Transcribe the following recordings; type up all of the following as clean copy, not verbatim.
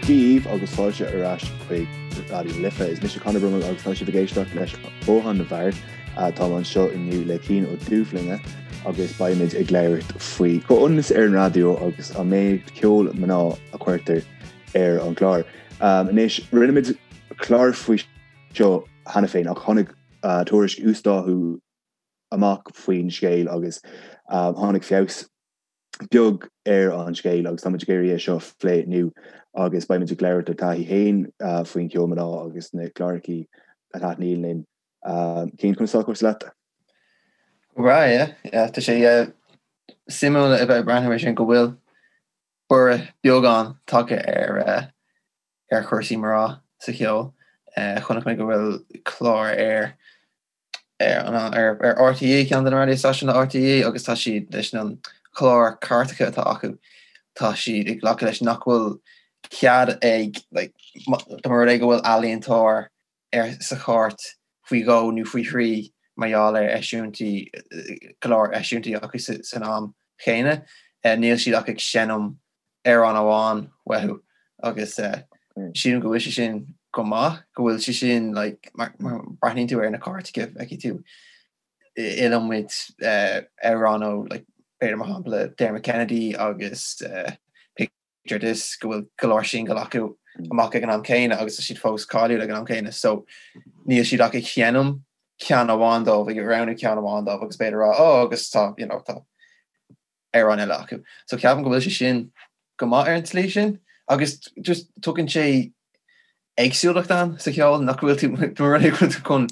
Dia dhaoibh agus fáilte ar ais chuig Raidió na Life. Is mise Conor Brummel agus tá sibh ag éisteacht leis Bothán na bhFear. Táim anseo inniu le Cian Ó Dúbhlinge agus beimid ag labhairt faoi chomhionannas ar an raidió agus an méid ceol mná a chuirtear ar an gclár. Anois, rinne muid clár faoi seo cheana féin ach tháinig tuairisc uasdátú amach faoin scéal agus tháinig feabhas beag ar an scéal agus táimid ag iarraidh é seo a phlé inniu agus beimid ag labhairt ár dtaithí féin faoin cheol mná agus na clárachaí a thaitníonn linn. Cian, conas tá cúrsaí leat? Go breá, yeah. Yeah, tá sé suimiúil a bheith ag breathnú ar sin go bhfuil borradh beagán tagtha ar ar chúrsaí mná sa cheol. Chonaic mé go bhfuil clár ar ar ar RTÉ, ceann de na raidió stáisiúin RTÉ agus tá siad leis an chlár cairteacha atá acu, tá siad ag glacadh leis nach bhfuil cead ag like dá mba rud é go bhfuil ealaíontóir ar sa chairt faoi dhó nó faoi thrí mar gheall ar eisiúintí go leor eisiúintí acu san am chéanna, níl siad ach ag seinm amhrán amháin uathu agus sílim go bhfuil sé sin go maith, go bhfuil sé sin like mar breathnaíonn tú ar na cairteacha feicfidh tú iliomad amhrán ó like b'fhéidir mar shampla Dermot Kennedy agus Picture This go bhfuil go leor singil acu amach ag an am céanna agus tá siad fós cáiliúil ag an am céanna so níl siad ach ag seinm ceann amháin dóibh, ag roghnú ceann amháin dóibh agus b'fhéidir rá oh agus tá you know tá amhrán eile acu. So ceapaim go bhfuil sé sin go maith ar an tslí sin agus just tugann sé éagsúlacht ann sa cheol nach bhfuil tú mar rud é go bhfuil tú chun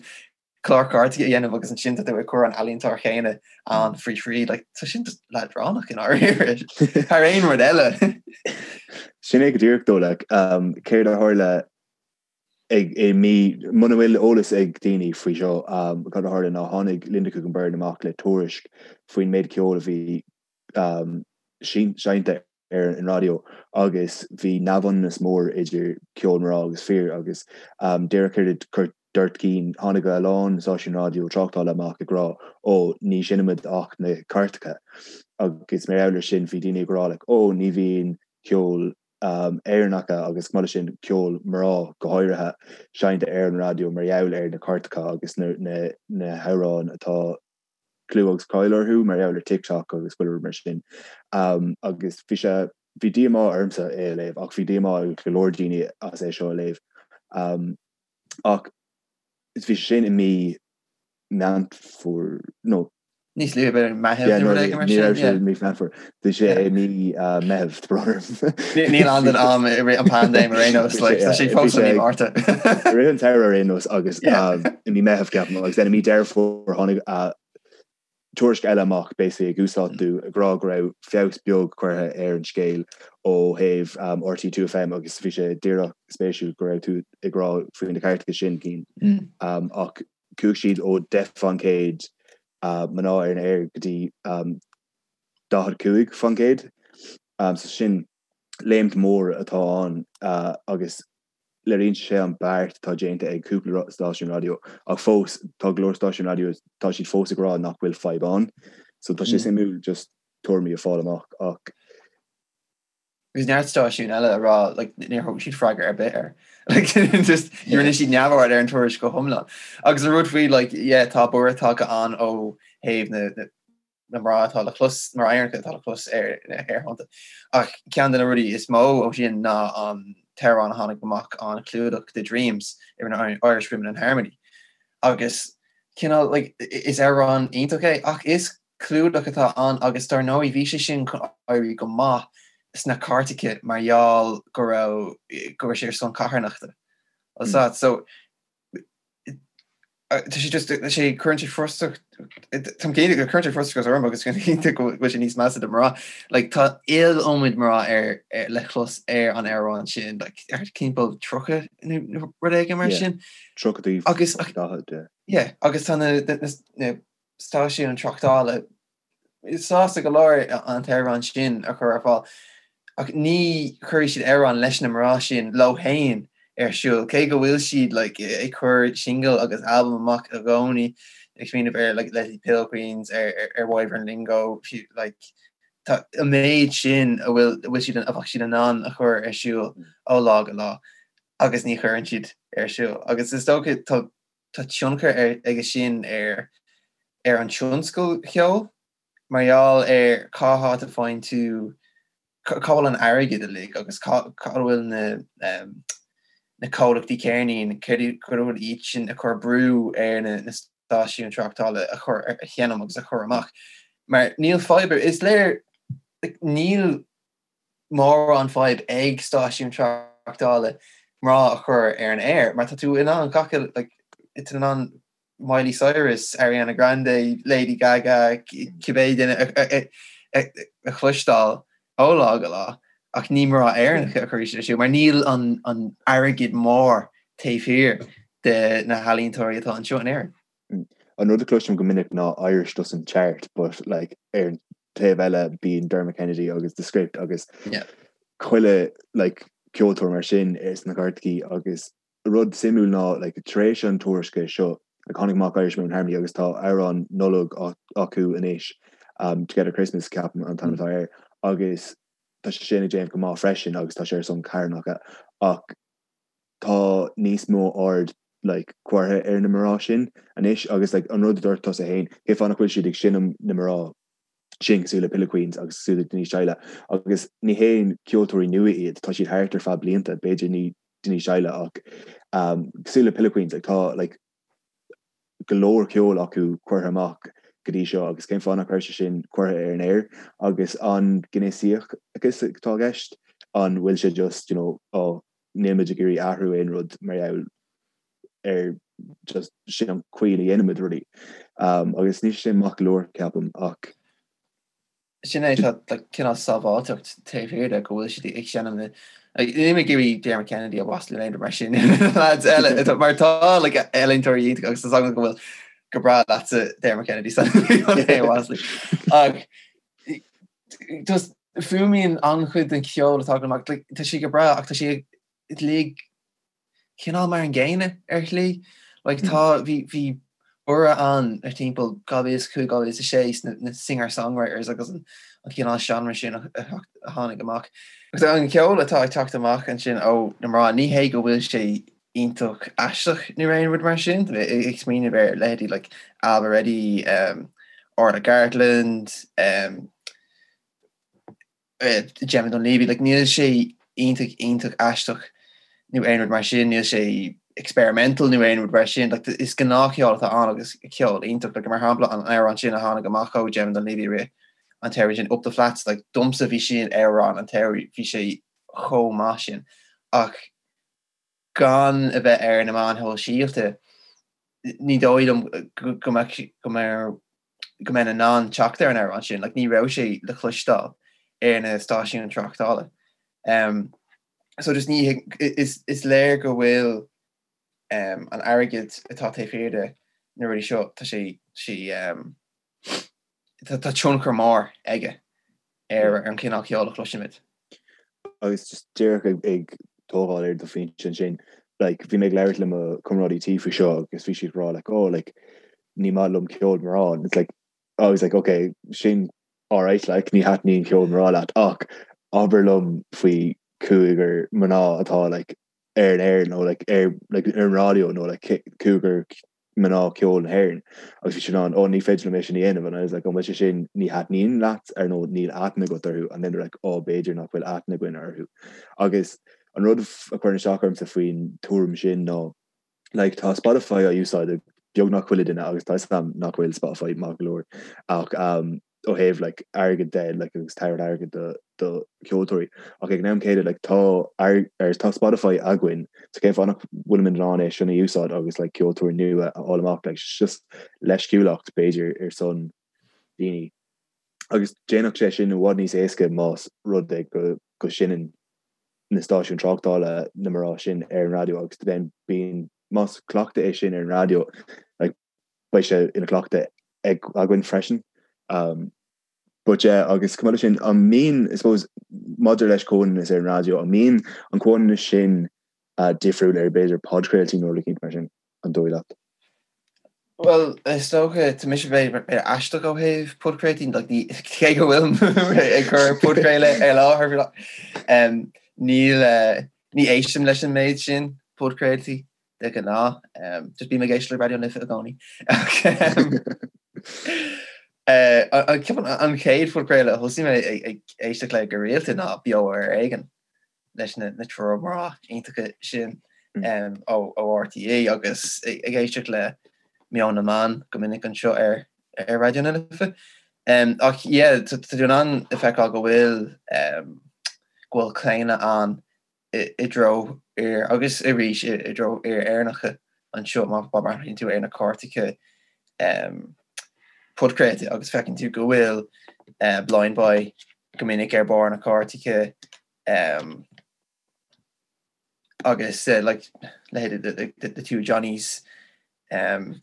clár cairteacha a dhéanamh agus ansin tá tú ag cur an ealaíontóir chéanna ann faoi thrí like tá sin just leadránach i ndáiríre thar aon rud eile. Sin é go díreach dó like um, céard a tharla ag i mí muna bhfuil eolas ag daoine faoi seo um, cad a tharla ná tháinig Linda Coogan Byrne amach le tuairisc faoin méid ceoil a bhí um, seinnte ar an raidió agus bhí neamhionannas mór idir ceol mná agus fir agus um, díreach céard a dúirt Cian, tháinig a lán stáisiún raidió tráchtála amach ag rá ó ní sheinnimid ach na cairteacha agus mar gheall ar sin bhí daoine ag rá like, ó ní bhíonn ceol Éireannacha agus chomh maith leis sin ceol mná go háirithe, seinnte ar an raidió mar gheall ar na cairteacha agus na hamhráin atá clú agus cáil orthu mar gheall ar TikTok agus chuile rud mar sin. Agus bhí sé, bhí díomá ormsa é a léamh ach bhí díomá ag go leor daoine as é seo a léamh. Ach bhí sé sin i mí Meán Fómhair, nó. Níos luaithe, b'fhéidir Meitheamh nó rud éigin mar sin. Ní raibh sé i mí Meán Fómhair. Bhí sé i mí Meitheamh, tá brón orm. Níl ann don am i rith an paindéim ar aon nós, like, tá sé fós i mí Márta. I rith an tsamhraidh ar aon nós agus i mí Meitheamh ceapaim agus then i mí Deireadh Fómhair tháinig tuairisc eile amach basically ag uasdátú ag rá go raibh feabhas beag curtha ar an scéal ó thaobh RTÉ 2FM agus bhí sé díreach spéisiúil go raibh tú ag rá faoi na cairteacha sin Cian ach chuaigh siad ó 10% mná ar an aer go dtí 45% so sin léimt mhór atá ann agus léiríonn sé an beart atá déanta ag cúpla stáisiún raidió ach fós tá go leor stáisiún raidió tá siad fós ag rá nach bhfuil fadhb ann so tá sé suimiúil just tuairimí a fáil amach ach Agus neart stáisiún eile a rá like níor thug siad freagra ar bith air. Like just rinne siad neamhaird ar an tuairisc go hiomlán. Agus an rud faoi like yeah tá borradh tagtha ann ó thaobh na na na mná atá le clos, mná Éireannacha atá le clos ar na haerthonnta. Ach ceann de na rudaí is mó ó sin ná an t-amhrán a tháinig amach an clúdach de Dreams a rinne Irish Women in Harmony. Agus cineál like is amhrán iontach é ach is clúdach atá ann agus dar ndóigh bhí sé sin chun éirí go maith sna cairteacha mar gheall go raibh go raibh sé ar son carthanachta. So Tá sé just tá sé cuireann sé frustrach Táim cinnte go cuireann sé frustrachas orm agus cinnte go bhfuil sé níos measa do mná. Like tá iliomad mná ar le clos ar an amhrán sin like ar timpeall 30 nó rud éigin mar sin. 30 agus 40 yeah agus tá na na stáisiúin tráchtála sásta go leor an t-amhrán sin a chur ar fáil, ach ní chuirfidh siad amhrán leis na mná sin leo féin ar siúl, cé go bhfuil siad like ag cur singil agus albam amach i gcónaí, ag smaoineamh ar like Leslie's Pillow Queens, ar ar Wyvern Lingo, like. Tá an méid sin a bhfuil a bhfuil siad a bheadh siad in ann a chur ar siúl ó lá go lá agus ní chuireann siad ar siúl. Agus is dócha tá tá tionchar ar aige sin ar ar an tionscal cheoil mar gheall ar cá háit a faigheann tú cá bhfuil an airgead uilig agus cá cá bhfuil na na comhlachtaí ceirnín, céard cad a bhfuil iad sin ag cur brú ar na na stáisiúin tráchtála a chur a sheinm agus a chur amach. Mar níl fadhb ar, is léir níl mórán fadhb ag stáisiúin tráchtála mná a chur ar an aer mar tá tú in ann gach like, tá tú in ann Miley Cyrus, Ariana Grande, Lady Gaga, cibé duine a chloisteáil ó lá go lá ach ní mná Éireannacha a chuirfidh siad ar siúl mar níl an an airgead mór taobh thiar de na healaíontóirí atá anseo in Éirinn. An rud a chloisim go minic ná Irish doesn't chart but like ar an taobh eile bíonn Dermot Kennedy agus The Script agus chuile like ceoltóir mar sin sna cairteachaí agus rud suimiúil ná like tar éis an tuairisce seo like tháinig amach Irish Women Harmony agus tá amhrán Nollag acu anois um, Together Christmas ceapaim an t-ainm atá air agus tá sé sin ag déanamh go maith freisin agus tá sé ar son carthanachta ach tá níos mó aird like curtha ar na mná sin anois agus like an rud a dúirt tusa féin cén fáth nach bhfuil siad ag seinm na mná sin cosúil le Pillow Queens agus cosúil le Denise Chaila agus ní haon ceoltóirí nua iad tá siad thart ar feadh blianta b'fhéidir ní Denise Chaila ach um, cosúil le Pillow Queens like, tá like, go leor ceoil acu curtha amach go dtí seo agus cén fáth nach raibh sé sin curtha ar an aer agus an gnéasachas atá i gceist an bhfuil sé just you know, oh, níl muid ag iarraidh athrú aon rud mar gheall ar just sin an chaoi a dhéanaimid rudaí. Um, agus níl sé maith go leor ceapaim ach Sin é tá like, cineál sábháilteacht taobh thiar de go bhfuil siad ag seinm na Níl mé ag iarraidh Dermot Kennedy a mhaslú nó aon rud mar sin lads eile atá- mar tá like, ealaíontóirí iontacha agus tá agam go bhfuil go breá leatsa Dermot Kennedy san é a mhaslú. Ach just fuaimíonn an-chuid den cheol atá agam amach like, tá sé go breá ach tá sé uilig cineál mar an gcéanna ar shlí. Like tá, bhí, bhí borradh ann ar timpeall 2005, 2006 sna na singer-songwriters agus an, an cineál seánra sin a, a, a tháinig amach. Agus an ceol atá ag teacht amach ansin ó na mná, ní hé go bhfuil sé iontach aisteach nó aon rud mar sin, tá mé ag smaoineamh ar leithéidí like Ailbhe Reddy, um, Orla Gartland, um, Gemma Dunleavy, like níl sé iontach iontach aisteach nó aon rud mar sin, níl sé experimental nó aon rud mar sin, like is gnáthcheol atá ann agus ceol iontach, like mar shampla an amhrán sin a tháinig amach ó Gemma Dunleavy i rith an tsamhraidh sin, Up the Flats, like domsa bhí sin amhrán an tsamhraidh, bhí sé chomh maith sin. Ach gan a bheith ar na meáin shóisialta, ní dóigh liom go mbeadh go mbeadh go mbeinn in ann teacht ar an amhrán sin, like ní raibh sé le cloisteáil ar na stáisiúin tráchtála. Um, so just ní is, is léir go bhfuil um, an airgead atá taobh thiar de na rudaí seo, tá sé, sé um, tá, tá tionchar mór aige ar an chineál ceoil a chloisimid. Agus just díreach ag, ag tógáil ar do phointe ansin, like, bhí mé ag labhairt le mo chomrádaí tí faoi seo agus bhí siad ag rá like, oh, like, ní maith liom ceol mná. And it's like, I was like, okay, sin alright, like, ní thaitníonn ceol mná leat ach abair liom faoi cúigear mná atá like, ar an aer nó like, ar, like, ar an raidió nó like, cúigear mná ceoil na hÉireann agus bhí siad in ann, oh ní féidir liom é sin a dhéanamh and I was like, an bhfuil sé sin ní thaitníonn leat ar nó níl aithne agat orthu and then they're like, oh b'fhéidir nach bhfuil aithne againn orthu. Agus an rud a chuireann isteach ormsa faoin tuairim sin ná like tá Spotify á úsáid ag beagnach chuile duine agus tá 'fhios agam nach bhfuil Spotify maith go leor ach um, ó thaobh like airgead de like agus tabhairt airgead do do cheoltóirí ach ag an am céanna like tá ar tá Spotify againn so cén fáth nach bhfuilimid in ann é sin a úsáid agus like ceoltóirí nua a fháil amach like just leisciúlacht b'fhéidir ar son daoine agus déanfadh sé sin i bhfad níos éasca más rud é go go seinneann na stáisiúin tráchtála na mná sin ar an raidió agus then bíonn más cleachtadh é sin ar an raidió like beidh sé ina chleachtadh ag againn freisin. Um, but yeah, agus chomh maith leis sin, an mbíonn, I suppose, maidir leis comhionannas ar an raidió, an mbíonn an comhionannas sin uh, difriúil ar b'fhéidir podchraoltaí nó rud éicint mar sin, an dóigh leat? Bhuel, is dócha, tá mise b'fhéidir aisteach ó thaobh podchraoltaí, like, ní, cé go bhfuilim ag cur podchraoladh ar láthair, um, níl, uh, ní éistim leis an méid sin podchraoltaí de ghnáth, um, just bím ag éisteacht le Raidió na Life i gcónaí. Uh, an, ceapaim an chéad phodchraoladh a thosaigh mé ag, ag éisteacht le go rialta ná Beo ar Éigean. leis na triúr mná iontacha sin ó RTÉ agus ag éisteacht le Meon na mBan go minic anseo ar Raidió na Life. Ach yeah, tá tú in ann a feiceáil go bhfuil go bhfuil claonadh ann i dtreo fhir agus arís i dtreo fhir Éireannacha anseo má bhreathnaíonn tú ar na cairteacha podchraolta agus feiceann tú go bhfuil Blindboy go minic ar barr na cairteacha um, agus uh, like, leithéid the, the, the two Johnnies um,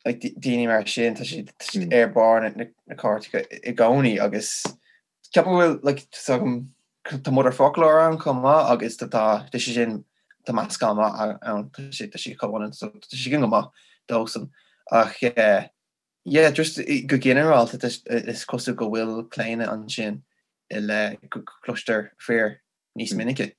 like, daoine mar sin tá siad mm. ar barr na, na, na cairteacha i gcónaí agus ceapaim go bhfuil like, tá Motherfoclóir ann chomh maith agus tá tá sé sin tá meascán maith ann tá sé tá sé comhionann so tá sé go maith dósan ach uh, Yeah, just go ginearálta is cosúil go bhfuil claonadh ansin i leith go gcloistear fir níos minice.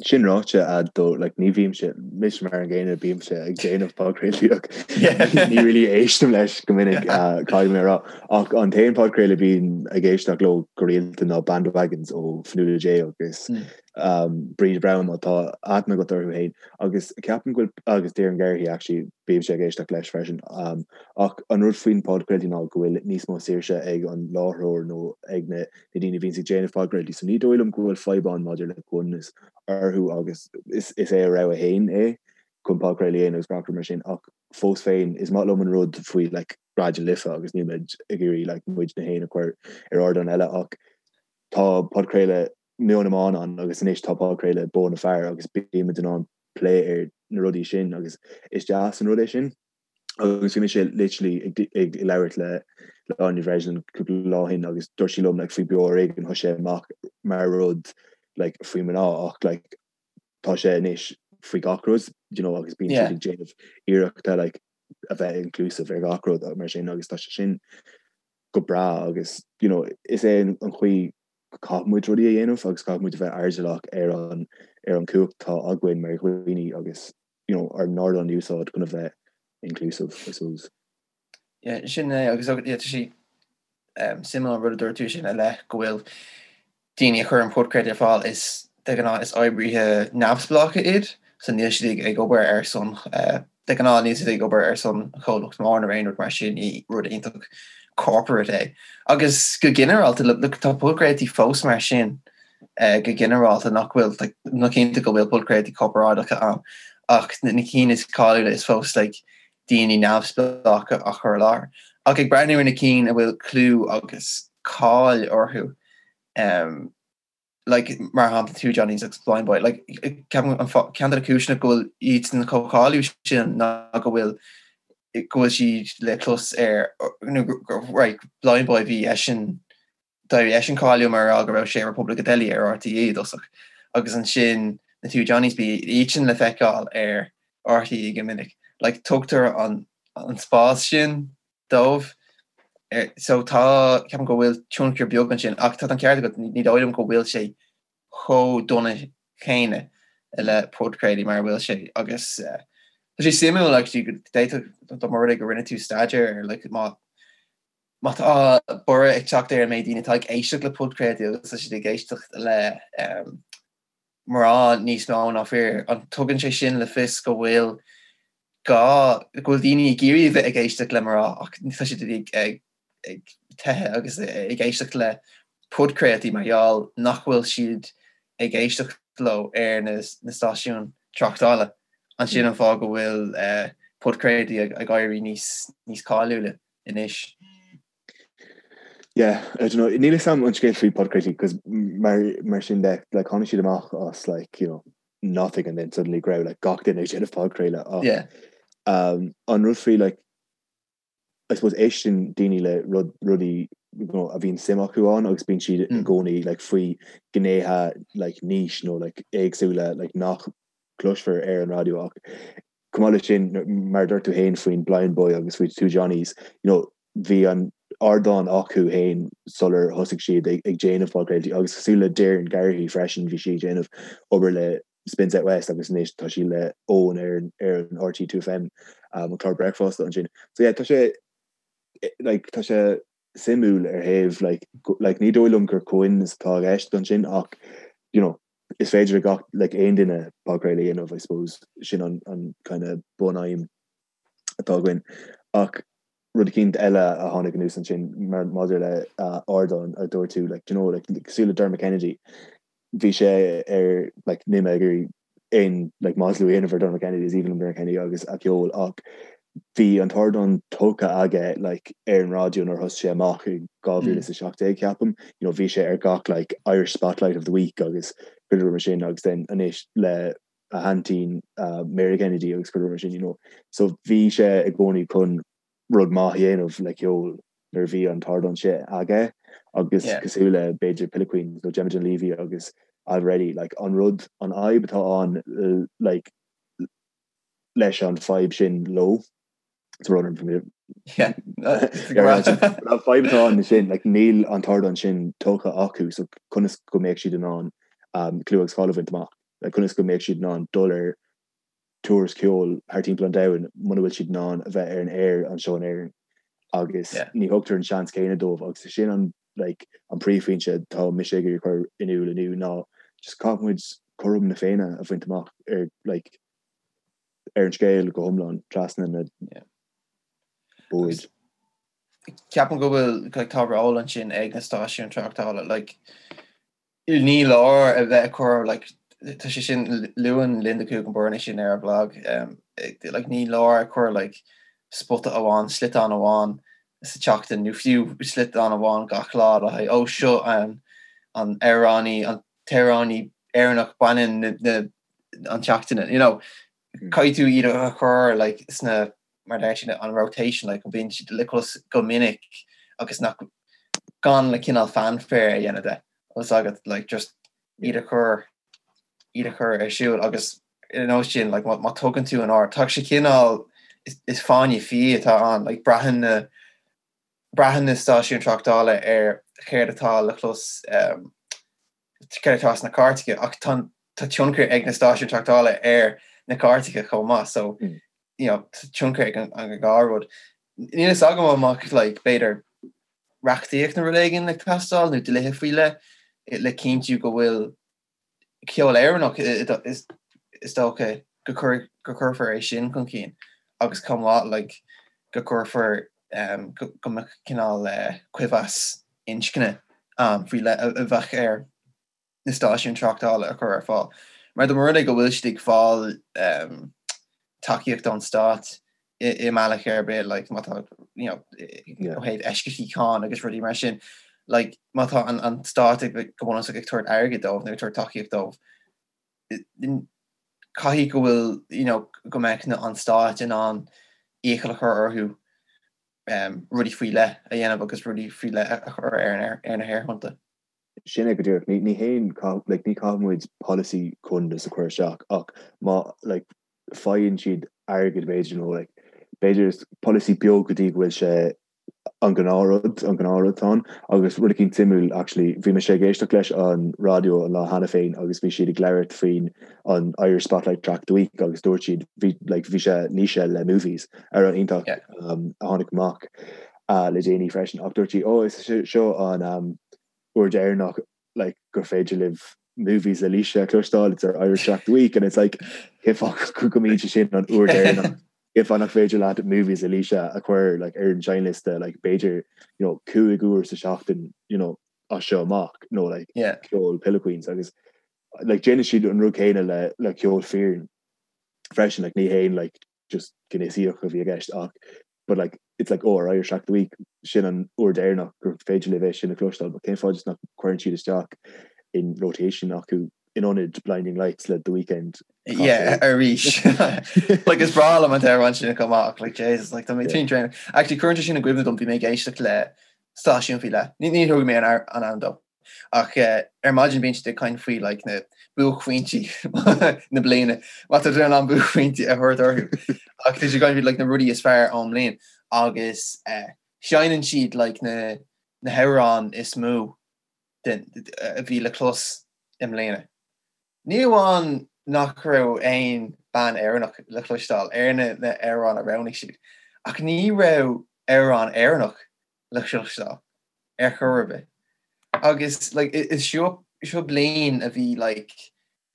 Sin ráite, though, like, ní bhímse, mise mar an gcéanna, bímse ag déanamh podchraoltaí ach ní really éistim leis go minic, caithfidh mé a rá. Ach an t-aon podchraoladh a bím ag éisteacht leo go rialta ná Bandwagons ó Fionnuala J agus Bríd Browne má tá aithne agat orthu féin. Agus ceapaim go bhfuil, agus Doireann Garrihy actually, bímse ag éisteacht leis freisin. Ach an rud faoin podchraoltaí ná go bhfuil níos mó saoirse ag an láithreoir nó ag na daoine a bhíonns ag déanamh podchraoltaí. So ní dóigh liom go bhfuil fadhb ann maidir le comhionannas orthu agus is é a rogha féin é chun podchraoladh a dhéanamh agus gach rud mar sin. Ach fós féin, is maith liom an rud faoi like Raidió na Life agus níl muid ag iarraidh like muidne féin a chur ar ardán eile ach tá podchraoladh Meon na mBan ann agus anois tá podchraoladh Bó na Fear agus bímid in ann plé ar na rudaí sin agus is deas an rud é sin. Agus bhí mise literally ag ag labhairt le le Áine Breslin cúpla lá ó shin agus dúirt sí liom like faoi Beo Ar Éigean thosaigh sé amach mar rud like faoi mná ach like tá sé anois faoi gach rud you know agus bíonn siad ag déanamh iarrachta like a bheith inclusive ar gach rud mar sin agus tá sé sin go breá agus you know is é an chaoi go caithfidh muid rudaí a dhéanamh agus caithfidh muid a bheith airdeallach ar an ar an chumhacht atá againn mar dhaoine agus you know ár n-ardán a úsáid chun a bheith inclusive I suppose. Yeah, sin é agus yeah, tá sé um, suimiúil an rud a dúirt tú sin i leith go bhfuil daoine a chuireann podchraoltaí ar fáil is de ghnáth is oibrithe neamhspleácha iad so níl siad ag, ag obair ar son uh, De ghnáth níl siad ag obair ar son chomhlacht mór nó aon rud mar sin, ní rud iontach corporate é. Agus go ginearálta, look, tá podchraoltaí fós mar sin go ginearálta nach bhfuil, like, nó cinnte go bhfuil podchraoltaí corparáideacha ann, ach na cinn is cáiliúla is fós like, daoine neamhspleácha á chur i láthair. Ach ag breathnú ar na cinn a bhfuil clú agus cáil orthu, um, like, mar shampla Two Johnnies agus Blindboy, like, ceapaim an fáth, ceann de na cúiseanna go bhfuil iadsan chomh cáiliúil sin ná go bhfuil go bhfuil siad le clos ar, nó right, Blindboy bhí eisean, d'éirigh eisean cáiliúil mar gheall go raibh sé ar Repubblica Deli ar RTÉ i dtosach agus ansin na Two Johnnies bhí iadsan le feiceáil ar RTÉ go minic. Like, tugtar an, an spás sin dóibh. So tá, ceapaim go bhfuil tionchar beag ansin ach tá an ceart agat, ní dóigh liom go bhfuil sé chomh dona céanna le podchraoltaí mar a bhfuil sé agus tá sé suimiúil actually go d'fhéadfadh dá mba rud é go rinne tú staidéar ar like má má tá borradh ag teacht ar an méid daoine atá ag éisteacht le podchraoltaí agus tá siad ag éisteacht le mná níos mó ná fir, an tugann sé sin le fios go bhfuil gá, go bhfuil daoine ag iarraidh a bheith ag éisteacht le mná ach tá siad ag ag teitheadh agus ag éisteacht le podchraoltaí mar gheall nach bhfuil siad ag éisteacht leo ar na stáisiúin tráchtála. An sin an fáth go bhfuil podchraoltaí ag éirí níos níos cáiliúla anois? Yeah, I don't know, níl 'fhios a'm an scéal faoi podchraoltaí 'cause mar mar sin de like tháinig siad amach as like you know nothing and then suddenly go raibh like gach duine ag déanamh podchraoladh ach Yeah. um, an rud faoi like I suppose éisteann daoine le rud rudaí you know, a bhíonn suim acu ann agus bíonn siad i mm. gcónaí like faoi gnéithe like niche nó like éagsúla like nach cloisfear ar an raidió ach. Chomh maith leis sin, mar a dúirt tú féin faoin Blindboy agus faoi Two Johnnies, you know, bhí an ardán acu féin sular thosaigh siad ag déanamh podchraoltaí agus cosúil le Doireann Garrihy freisin, bhí sí ag déanamh obair le Spin South West agus anois tá sí le Eoin ar ar an RTÉ 2FM, an clár bricfeasta ansin. So yeah, tá sé like tá sé suimiúil ar thaobh like like ní dóigh liom gur comhionannas atá i gceist ansin ach you know is féidir le gach like aon duine podchraoladh a dhéanamh I suppose sin an an kind of bunaidhm atá againn ach rud eicínt eile a tháinig anuas ansin mar maidir le ardán a dúirt tú like do you know like cosúil le Dermot Kennedy bhí sé ar like níl mé ag iarraidh aon like maslú a dhéanamh ar Dermot Kennedy is aoibhinn liom Dermot Kennedy agus a cheol ach bhí an t-ardán tógtha aige like ar an raidió nuair a thosaigh sé amach i 2017 ceapaim you know bhí sé ar gach like Irish Spotlight of the Week agus chuile rud mar sin agus then anois le a haintín uh, Mary Kennedy agus chuile rud mar sin you know so bhí sé i gcónaí chun rud maith a dhéanamh le ceol nuair a bhí an t-ardán sin aige agus cosúil le b'fhéidir Pillow Queens nó Gemma Dunleavy agus Ailbhe Reddy like an rud an fhadhb atá ann like leis an fadhb sin leo an fadhb atá ann sin like níl an t-ardán sin tógtha acu so conas go mbeadh siad in ann um, clú agus cáil a bhaint amach like conas go mbeadh siad in ann dul ar tours ceoil thar timpeall an domhain muna bhfuil siad in ann a bheith ar an aer anseo in Éirinn agus ní thugtar an seans céanna dóibh agus sin an like an príomhphointe atá mise ag iarraidh cur in iúl inniu ná just caithfidh muid cothrom na Féinne a bhaint amach ar like ar an scéal go hiomlán trasna na boird. Ceapaim go bhfuil like tá ról ansin ag na stáisiúin tráchtála like Ní leor a bheith ag cur like tá sé sin luann Linda Coogan Byrne é sin ar a blag like ní leor ag cur like spota amháin sliotán amháin sa tseachtain nó fiú sliotán amháin gach lá le haghaidh ó seo an an amhránaí an t-amhránaí Éireannach baineann na na an tseachtaine you know caithfidh tú iad a chur like sna mar deir siad an rotation like go mbíonn siad le clos go minic agus nach gan le cineál fanfare a dhéanamh de agus agat like just iad a chur iad a chur ar siúl agus ar nós sin like má tugann tú an aird tá sé cineál is, is fáinne fí atá ann like braitheann na braitheann na stáisiúin tráchtála ar chéard atá le clos um, céard atá sna cairteacha ach tá tá tionchar ag na stáisiúin tráchtála ar na cairteacha chomh maith so mm. you know, tionchar ag an, an dhá rud. Níl fhios agam an mbeadh like, b'fhéidir reachtaíocht nó rud éigin ag teastáil nó dlíthe faoi leith le cinntiú go bhfuil ceol Éireannach is, is dócha go, cur, go cuirfear é sin chun cinn agus chomh maith like, go gcuirfear um, go, go mbeadh cineál uh, cuibheas inscne um, faoi leith a, a bheadh ar na stáisiúin tráchtála a chur ar fáil. Mar dá mba rud é go bhfuil siad ag fáil um, tacaíocht ón stát i, i mbealach ar bith, like, má tá you know, ó thaobh eisceachtaí cáin agus rudaí mar sin, like, má tá an, an stát ag go bunúsach ag tabhairt airgid dóibh nó ag tabhairt tacaíocht dóibh, caithfidh go bhfuil you know, go mbeadh an stát in ann iachall a chur orthu um, rudaí faoi leith a dhéanamh agus rudaí faoi leith a chur ar, ar na haerthonnta. Sin é go díreach. Ní, ní haon, like, ní caithfidh muid polasaí comhionannais a chur isteach ach má like, faigheann siad airgead b'fhéidir nó like, b'fhéidir is polasaí beag go dtí go bhfuil sé an gnáthrud, an gnáthrud atá ann. Agus rud eicínt suimiúil actually, bhí mise ag éisteacht leis an raidió an lá cheana féin agus bhí siad ag labhairt faoin an Irish Spotlight Track of the Week agus dúirt siad, bhí like, bhí sé Naoise le Movies, amhrán iontach yeah. um, a tháinig amach uh, le déanaí freisin ach dúirt sí, oh, is seo an um, uair deireanach like, gur féidir libh Movies le Laoise a chloisteáil, it's our Irish Track of the Week and it's like cén fáth go mbíonn sé sin an uair deireanach cén fáth nach féidir leat Movies le Laoise a chur like, ar an seinnliosta like, b'fhéidir you know, 5 uair sa seachtain you know, as seo amach nó like, yeah. ceol Pillow Queens agus like, déanann siad an rud céanna le, le ceol fireann freisin like, ní haon like, just gnéasaíocht a bhí i gceist ach but like it's like oh our Irish Track of the Week sin an uair deireanach gur féidir libh é sin a chloisteáil but cén fáth just nach gcuireann siad isteach in rotation acu in ionad Blinding Lights le The Weeknd Yeah, arís. Like is breá liom an t-amhrán sin chomh maith like Jesus like tá mé tinn tréan. Actually cuireann sé sin i gcuimhne dom bhí mé ag éisteacht le stáisiún faoi leith. Ní ní thug mé an an ainm dó. Ach ar maidin bíonn siad ag caint faoi like na buaicphointí na bliana. Má tá tú in ann buaicphointí a thabhairt orthu. Ach tá siad ag caint faoi like na rudaí is fearr ón mbliain agus seinneann siad like na na hamhráin is mó den a bhí le clos i mbliana. Ní amháin nach raibh aon bean Éireannach le cloisteáil ar na na hamhráin a roghnaigh siad, ach ní raibh amhrán Éireannach le cloisteáil ar chor ar bith. Agus like is seo seo bliain a bhí like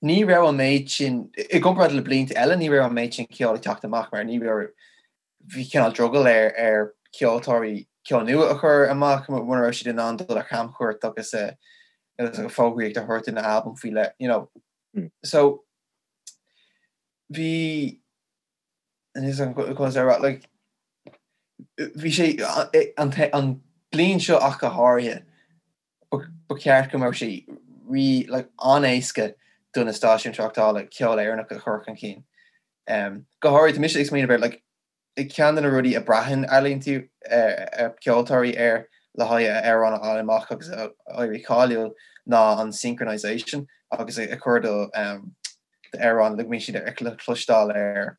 ní raibh an méid sin i gcomparáid le blianta eile ní raibh an méid sin ceoil ag teacht amach mar ní raibh bhí cineál drogall ar ar cheoltóirí ceol nua a chur amach mura raibh siad in ann dul ar chamchuairt agus agus fógraíocht a thabhairt don albam faoi leith you know. So bhí like bhí sé an an bliain seo ach go háirithe ba cheart go mbeadh sé rí like an-éasca do na stáisiúin tráchtála ceol Éireannach a chur chun cinn. Um, go háirithe tá mise ag smaoineamh ar like ceann de na rudaí a braitheann ealaíontóirí ar ceoltóirí air le haghaidh a amhrán a fháil amach agus a éirí cáiliúil ná an synchronization agus a chur do um, d'amhrán le go mbíonn siad le cloisteáil ar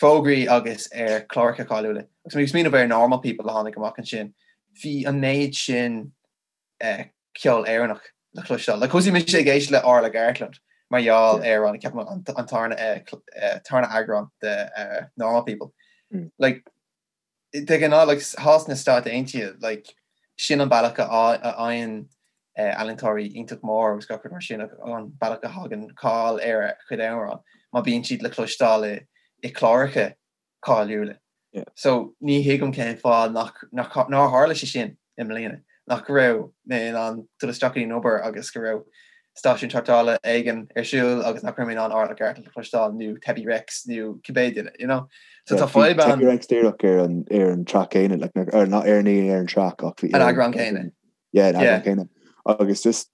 fógraí agus ar chláracha cáiliúla. Agus mé ag smaoineamh ar Normal People a tháinig amach ansin, bhí an méid sin ceol Éireannach le cloisteáil. Like thosaigh mise ag éisteacht le Orla Gartland mar gheall ar an ceapaim an tarna eagrán de Normal People. Like de ghnáth like thall sna Stáit Aontaithe like sin an bealach a fhaigheann ealaíontóirí iontach mór agus gach rud mar sin an bealach a thagann cáil ar a chuid amhrán má bíonn siad le cloisteáil i cláracha cáiliúla. So ní thuigim cén fáth nach nár tharla sé sin i mbliana, nach raibh mé in ann dul isteach go dtí an obair agus go raibh stáisiún tráchtála éigin ar siúl agus nach raibh mé in ann Orla Gartland a chloisteáil nó Tebi Rex nó cibé duine, you know? So tá fadhb ann. Tebi Rex díreach ar an ar an track céanna, like, ar not ar ní ar an track ach bhí an eagrán céanna. Yeah, an eagrán céanna. Agus just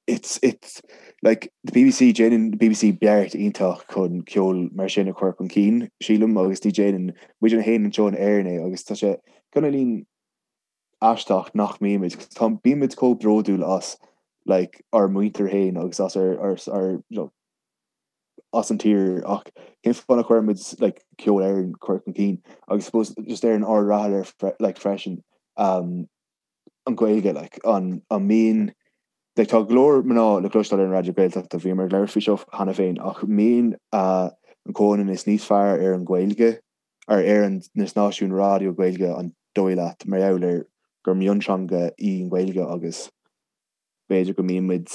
it's it's like the BBC déanann the BBC beart iontach chun ceol mar sin a chur chun cinn, sílim, agus ní déanann muid féin anseo in Éirinn é agus tá sé cineáilín aisteach nach mbímid, tá bímid chomh bródúil as like ár muintir féin agus as ár ár ár you know, as an tír ach cén fáth nach gcuirimid like ceol Éireann chur chun cinn agus suppose just ar an ard reatha ar like freisin um, an Ghaeilge like an an mbíonn like tá go leor mná le cloisteáil ar an Raidió Gaeltachta bhíomar ag labhairt faoi seo cheana féin ach mbíonn uh, an comhionannas níos fearr ar an Ghaeilge ar ar an na stáisiúin raidió Gaeilge an dóigh leat mar gheall ar gur mionteanga í an Ghaeilge agus b'fhéidir go mbíonn muid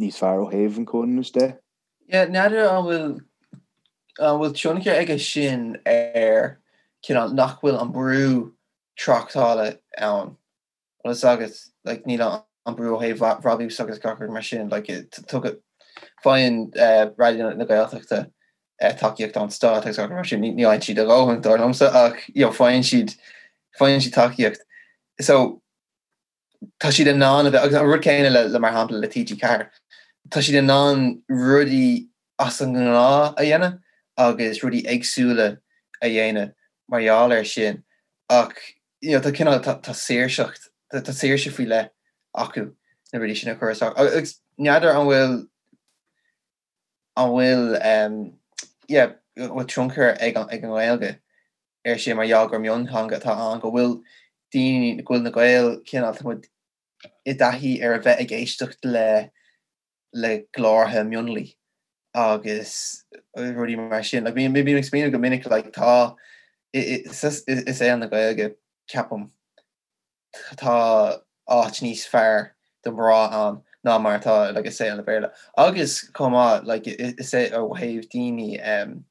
níos fearr ó thaobh an chomhionannais de? Yeah, n'fheadar an bhfuil an bhfuil tionchar aige sin ar cineál nach bhfuil an brú tráchtála ann. Bhfuil fhios agat, like, níl an brú ó thaobh bhrabús agus gach rud mar sin, like, tugadh, faigheann Raidió na Gaeltachta tacaíocht ón stát agus gach rud mar sin, ní fhaigheann siad a dhóthain, dar liomsa, ach, you know, faigheann siad, faigheann siad tacaíocht. So, tá siad in ann a bheith, agus an rud céanna le, le mar shampla le TG4, tá siad in ann rudaí as an ngnáth a dhéanamh agus rudaí éagsúla a dhéanamh mar gheall air sin ach you know, tá cineál, tá, tá saoirseacht, tá, tá saoirse faoi leith acu na rudaí sin a chur isteach. Agus n'fheadar an bhfuil, an bhfuil, um, yeah, an bhfuil tionchar ag an, ag an nGaeilge ar sin mar gheall gur mionteanga atá ann, go bhfuil daoine, go bhfuil na Gaeil cineál, tá muid i dtaithí ar a bheith ag éisteacht le, le glórtha mionlaigh agus rudaí mar sin. Like, bím ag smaoineamh go minic like, tá i saol na Gaeilge ceapaim tá áit níos fearr do mhná ann ná mar atá like, i saol na Béarla. Agus chomh maith like, is é ó thaobh daoine um,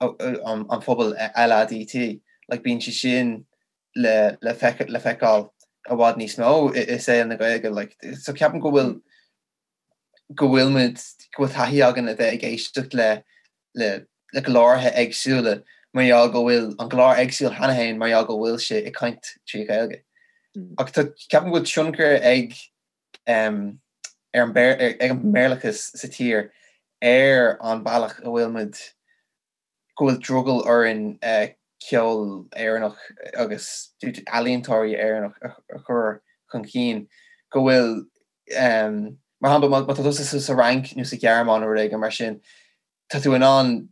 an, an phobal LADT, like, bíonn sé sin le le le feiceáil i bhfad níos mó i saol na Gaeilge like so ceapaim go bhfuil go bhfuil muid go bhfuil taithí againn a bheith ag éisteacht le le le glórtha éagsúla mar gheall go bhfuil an glór éagsúil cheana féin mar gheall go bhfuil sé ag caint trí Ghaeilge. Ach tá ceapaim go bhfuil tionchar ag um, ar an ag an mBéarlachas sa tír ar an bealach a bhfuil muid go bhfuil drogall orainn ceol Éireannach agus ealaíontóirí Éireannach a chur. chun cinn, go bhfuil, mar shampla, má tá tusa sa Fhrainc nó sa Ghearmáin nó rud éigin mar sin, tá tú in ann,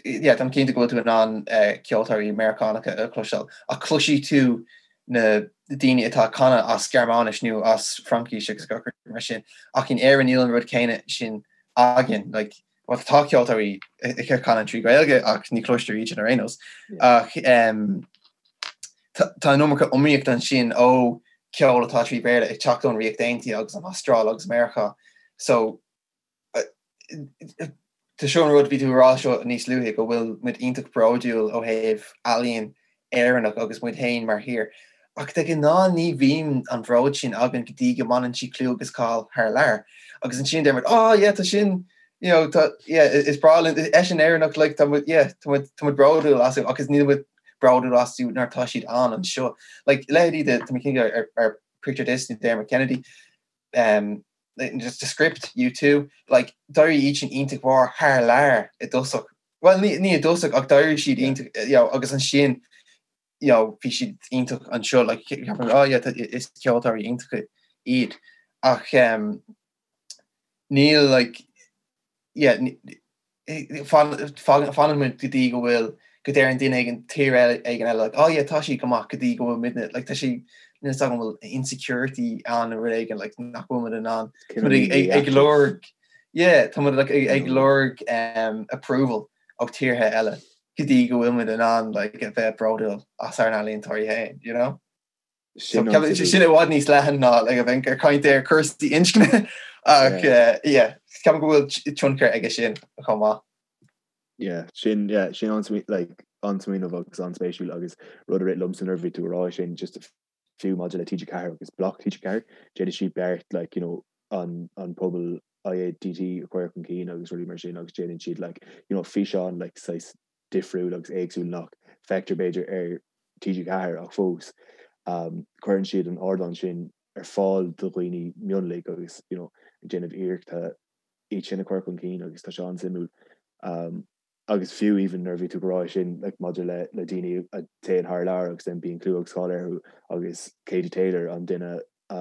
yeah, táim cinnte go bhfuil tú in ann ceoltóirí Meiriceánacha a chloisteáil, ach cloisfidh tú na daoine atá ag canadh as Gearmáinis nó as Fraincis agus gach rud mar sin, ach in Éirinn níl an rud céanna sin againn, like, bhuel tá ceoltóirí ag canadh trí Ghaeilge ach ní chloistear iad sin ar aon nós, ach tá an iomarca iomaíocht ansin ó ceol atá trí Bhéarla ag teacht ón Ríocht Aontaithe agus an Astráil agus Meiriceá, so Tá seo an rud, bhí tú ag rá seo níos luaithe, go bhfuil muid iontach bródúil ó thaobh ealaíon Éireannach agus muid féin mar thír. Ach de ghnáth ní bhíonn an bhród sin againn go dtí go mbaineann siad clú agus cáil thar lear. Agus ansin deir muid, oh yeah, tá sin, you know, tá, yeah, is breá linn, eisean Éireannach, like, tá muid, yeah, tá muid, tá muid bródúil astu agus níl muid bródúil astu nuair atá siad ann anseo. Like, leithéidí de, tá mé cinnte ar, ar Picture This nó Dermot Kennedy, um, just The Script, U2, like, d'éirigh iad sin iontach mhór thar lear i dtosach. Well, ní, ní i dtosach ach d'éirigh siad iontach, you know, agus ansin, you know, bhí siad iontach anseo, like, ceapaim, oh yeah, is ceoltóirí iontacha iad. Ach um, níl, like, yeah, fanann muid go dtí go bhfuil, go ndeireann duine éigin, tír éigin eile like oh yeah tá siad go maith go dtí go bhfuil muidne, like tá sé, níl 'fhios agam an bhfuil insecurity ann nó rud éigin like nach bhfuil muid in ann, tá muid ag lorg, yeah, tá muid like ag lorg approval ó tíortha eile go dtí go bhfuil muid in ann like a bheith bródúil as ár n-ealaíontóirí féin, you know? Sin i bhfad níos leathan ná like a bheith ag caint ar cúrsaí inscne ach yeah, ceapaim go bhfuil tionchar aige sin chomh maith. Yeah, sin yeah, sin like an-smaoineamh agus an-spéisiúil agus rud a rith liomsa nuair a bhí tú ag rá sin just fiú maidir le TG4 agus bloc TG4, déanann siad beart like you know an an pobal IADT a chur chun cinn agus rudaí mar sin agus déanann siad like you know físeán like saghas difriúil agus éagsúil nach bhfeictear b'fhéidir ar TG4 ach fós cuireann siad an ardán sin ar fáil do dhaoine mionlaigh agus you know ag déanamh iarrachta iad sin a chur chun cinn agus tá sé an-suimiúil. Agus fiú even nuair a bhí tú ag rá sin like maidir le le daoine a théann thar lear agus then bíonn clú agus cáil orthu agus Katie Taylor an duine a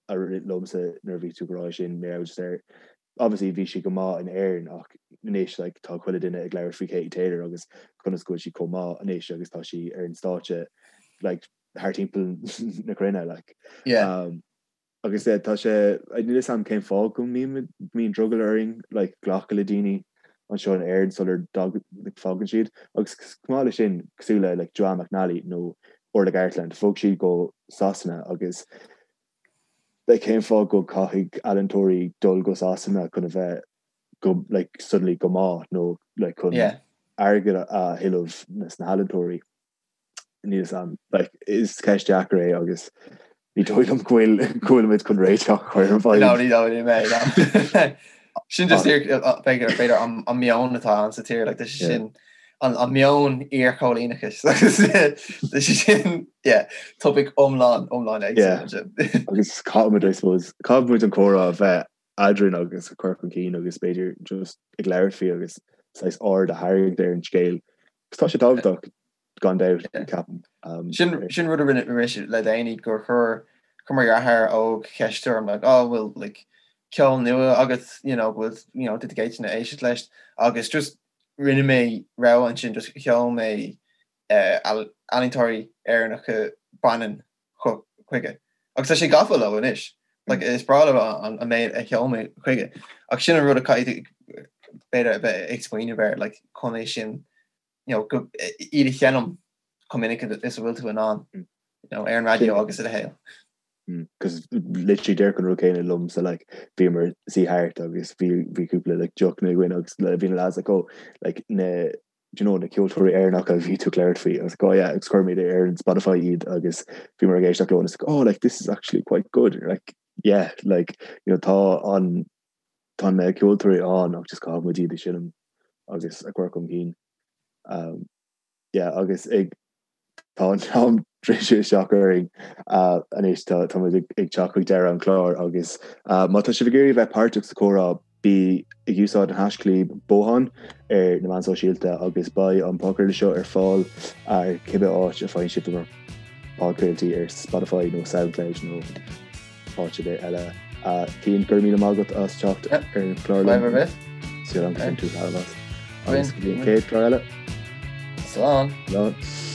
a rith liomsa nuair a bhí tú ag rá sin mé just ar obviously bhí sí go maith in Éirinn ach anois like tá chuile duine ag labhairt faoi Katie Taylor agus conas go bhfuil sí chomh maith anois agus tá sí ar an stáitse like thar timpeall na cruinne like. Yeah. Um, agus yeah, tá sé níl fhios a'm cén fáth go mbíonn mbíonn drogall orainn like glacadh le daoine anseo in Éirinn sular like, fágann siad agus chomh maith le sin cosúil le like Joanne McNally nó Orla Gartland bhog siad go Sasana agus like cén fáth go caithfidh ealaíontóirí dul go Sasana chun a bheith go like suddenly go maith nó like chun yeah. airgead a thuilleamh sna healaíontóirí níl fhios a'm like is ceist deacair é agus ní dóigh liom go bhfuil go bhfuil muid chun réiteach a chur ar an bhfadhb. No, ní dóigh liom é, no. Sin just b'fhéidir an meon atá ann sa tír, like, tá sé sin an meon iarchoilíneachais tá sé sin yeah, topaic iomlán iomlán éagsúil. Agus caithfimid I suppose caithfimid an comhrá a bheith eadrainn agus a chur chun cinn agus b'fhéidir just ag labhairt faoi agus saghas aird a tharraingt ar an scéal. Agus tá sé tábhachtach gan dabht ceapaim. Sin sin rud a rinne mise le déanaí gur chuir chuir mo dheartháir óg ceist orm like oh bhfuil like ceol nua agat you know bhfuil you know did you éisteacht leis agus just rinne mé rogha ansin just sheol mé ealaíontóirí Éireannacha baineann chuige. Agus tá sé gafa leo anois. Like, is breá leo an méid a sheol mé chuige. Ach sin an rud a caithfidh b'fhéidir a bheith ag smaoineamh air, like, chun é sin, you know, go, iad a sheinm chomh minic is a bhfuil tú in ann, you know, ar an raidió agus a leithéid. Cos literally díreach an rud céanna liomsa like bhíomar suí thart agus bhí bhí cúpla like deochanna againn agus bhí na lads like oh like na do you know na ceoltóirí Éireannacha a bhí tú ag labhairt faoi agus like oh yeah agus chuir muid ar an Spotify iad agus bhíomar ag éisteacht leo and it's like oh like this is actually quite good like yeah like you know tá an tá na ceoltóirí ann ach just caithfidh muid iad a sheinm agus a chur chun cinn um yeah agus ag Tá an t-am druidte isteach orainn anois, tá muid ag teacht chuig deireadh an chláir agus má tá sibh ag iarraidh bheith páirteach sa chomhrá, bí ag úsáid an haischlib Bothán ar na meáin sóisialta agus beidh an podchraoladh seo ar fáil ar cibé áit a faigheann sibh bhur. Podchraoltaí ar Spotify nó Soundcloud nó áit ar bith eile. Cian, go raibh míle maith agat as teacht ar an chlár liom. Fadhb ar bith. Súil agam gur bhain tú taitneamh as. Agus go dtí an chéad chlár eile. Slán. Slán.